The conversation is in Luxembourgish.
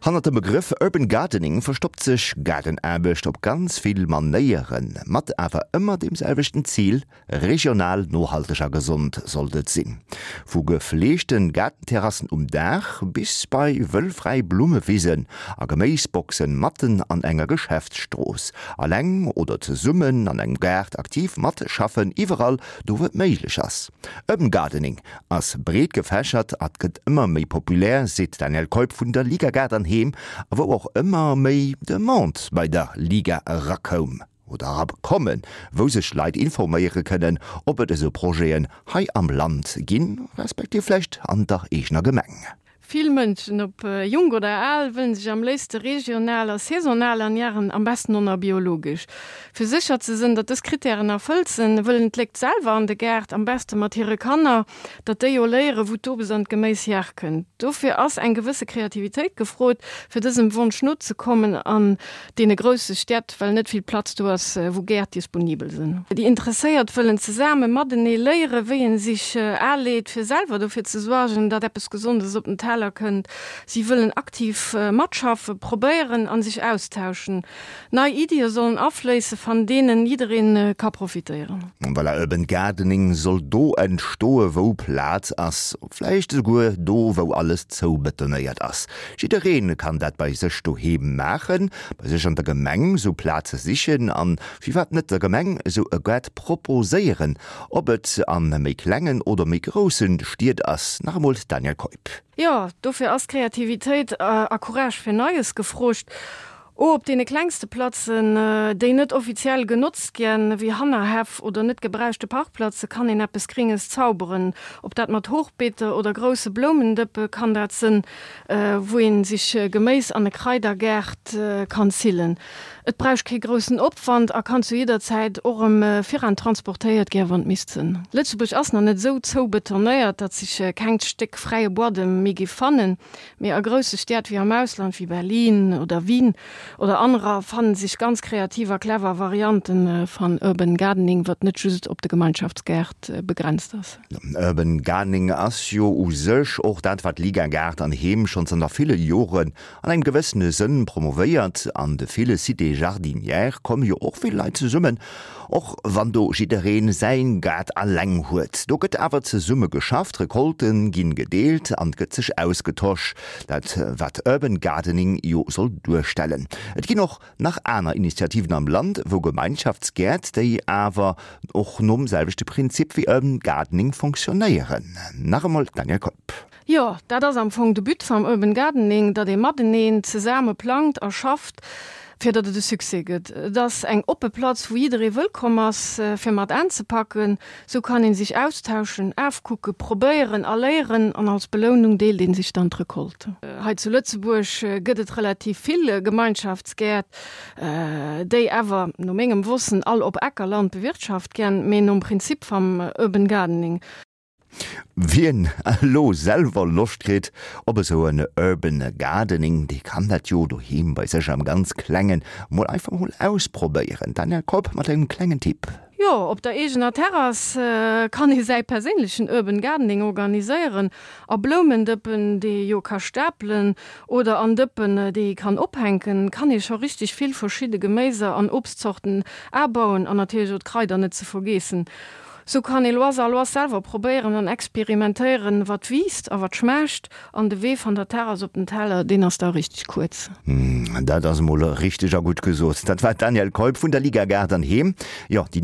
Hannert dem Begrëff Urban Gardening verstoppt sech Gaardenaarbecht op ganz vill Manéieren, mat awer ëmmer deem selwechten Zil, Regional, nohalteg a gesond sollt et sinn. Vu gefleegten Gaardenterrassen um Daach bis bei wëllfräi Blummewisen a Geméisboxen matten an enger Geschäftsstrooss. Alleng oder zesummen an engem Gaart aktiv matschaffen, iwwerall do wou et méiglech ass. Urban Gardening ass breet gefächert a gëtt ëmmer méi populär, seet d'Danièle Keup vun der Liga Gaart an Heem, a wou och ëmmer méi Demande bei der Liga erakoum. Oder erakommen, wou sech Leit informéiere kënnen, ob et esou Projeten hei am Land ginn, respektiv vläicht an der eegener Gemeng. Vill Mënschen, ob jonk oder al, wëllen sech am léifste regional a saisonal ernären, am besten och nach biologesch. Fir sécher ze sënn, datt dës Krittären erfëllt sënn, wëllen d'Léckt selwer an de Gaart, am beste mat hire Kanner, datt déi o léieren, wou d'Obes an d'Geméis herkënnt. Dofir ass eng gewësse Kreativitéit gefrot, fir dësem Wonsch nozekommen an deene grousse Städt, well net vill Platz do ass, wou Gäert disponibel sinn. Déi Interesséiert wëllen zesame matenee léieren, wéi een sich aleet, fir selwer dofir ze suergen, datt eppes Gesondes op den Teller kënnt. Si wëllen aktiv matschaffen, probéieren an sich austauschen. Nei Iddie sollen afléisse van deenen jiddereen ka profitéieren. Voilà, Urban Gardening soll do entstoe wou Plaz ass, vläicht esouguer do wou alles zoubetonéiert ass. Jiddereen kann dat bei sech doheem maachen, bei sech an der Gemeng sou Plaze sichen an firwat net der Gemeng sou e Gaart proposéieren, ob et an méi klengen oder méi groussen Stied ass. Nach emol d'Danièle Keup. Jo, dofir ass Kreativitéit a Courage fir Neies gefroogt. O op deene klengste Platzen, déi net offiziell genotzt ginn, wéi Hannerhäff oder net gebräuchte Parkplatze, kann een eppes Gringes zauberen. Ob dat mat Hochbeete oder grousse Bloumendëppe kann dat sënn, wou een sich Geméis an e Kraidergaart kann zillen. Et bräuch kee groussen Opwand a kann zu jidder Zäit och erëm viran transportéiert gär, wann et misst sënn. Lëtzebuerg ass nach net esou zoubetonéiert, datt sich kengt Stéck fräie Buadem méi giff fannen. Mee a grousse Stied wéi am Ausland, wéi Berlin oder Wien oder anerer, fannen sech ganz kreativ a clever Varianten van Urban Gardening, wat net just op de Gemeinschaftsgaart begrenzt ass. Urban Gardening ass jo u sech och dat, wat Liga Gaart an Heem schonn zanter ville Joren an engem gewëssene Sënn promovéiert. An de ville Cités jardinières komme jo och vill Leit zesummen, Och wann do jiddereen säin Gaart alleng huet, do gëtt awer zesumme geschafft, Recolten ginn gedeelt an gëtt sech ausgetosch, dat wat Urban Gardening jo soll duerstellen. Et ginn och nach aner Initiativen am Land wou Gemeinschaftsgäert, déi awer och nom selwechte Prinzip wéi Urban Gardening fonctionnéieren. Nach emol d'Danièle Keup. Jo, dat ass am Fong de But vam Urban Gardening, datt ee mateneen zesame plangt a schafft, fir datt et e Succès gëtt. Et ass eng oppe Platz, wou jidderee wëllkomm ass, fir mat aanzepacken. Sou kann ee sich austauschen, aafkucken, probéieren a léieren an als Belounung deelt ee sich dann d'Recolte. Hei zu Lëtzebuerg gëtt et relativ vill Gemeinschaftsgäert, déi awer, no mengem Wossen, all op Ackerland bewirtschaft gän, mee nom Prinzip vam Urban Gardening. Wien elo selwer Loscht kritt op esou en Urban Gardening, dee kann dat jo doheem bei sech am ganz klengen mol einfach mol ausprobéieren. D'Danièle Keup mat engem klengen Tipp. Jo, op der eegener Terrass kann ee säi perséinlechen Urban Gardening organiséieren. A Bloumendëppen, déi ee jo ka stapelen, oder an Dëppen, déi ee kann ophänken, kann ee scho richteg vill verschidde Geméiser an Obstzorten abauen an natierlech och d'Kraider net ze vergeessen. Sou kann ee lois a lois selwer probéieren an experimentéieren, wat wiisst a wat schmaacht. An de Wee van der Terrass op den Teller, deen ass da richteg kuerz. Dat ass emol richteg a gutt gesot. Dat war d'Danièle Keup vun der Liga Gaart an Heem. Jo, déi.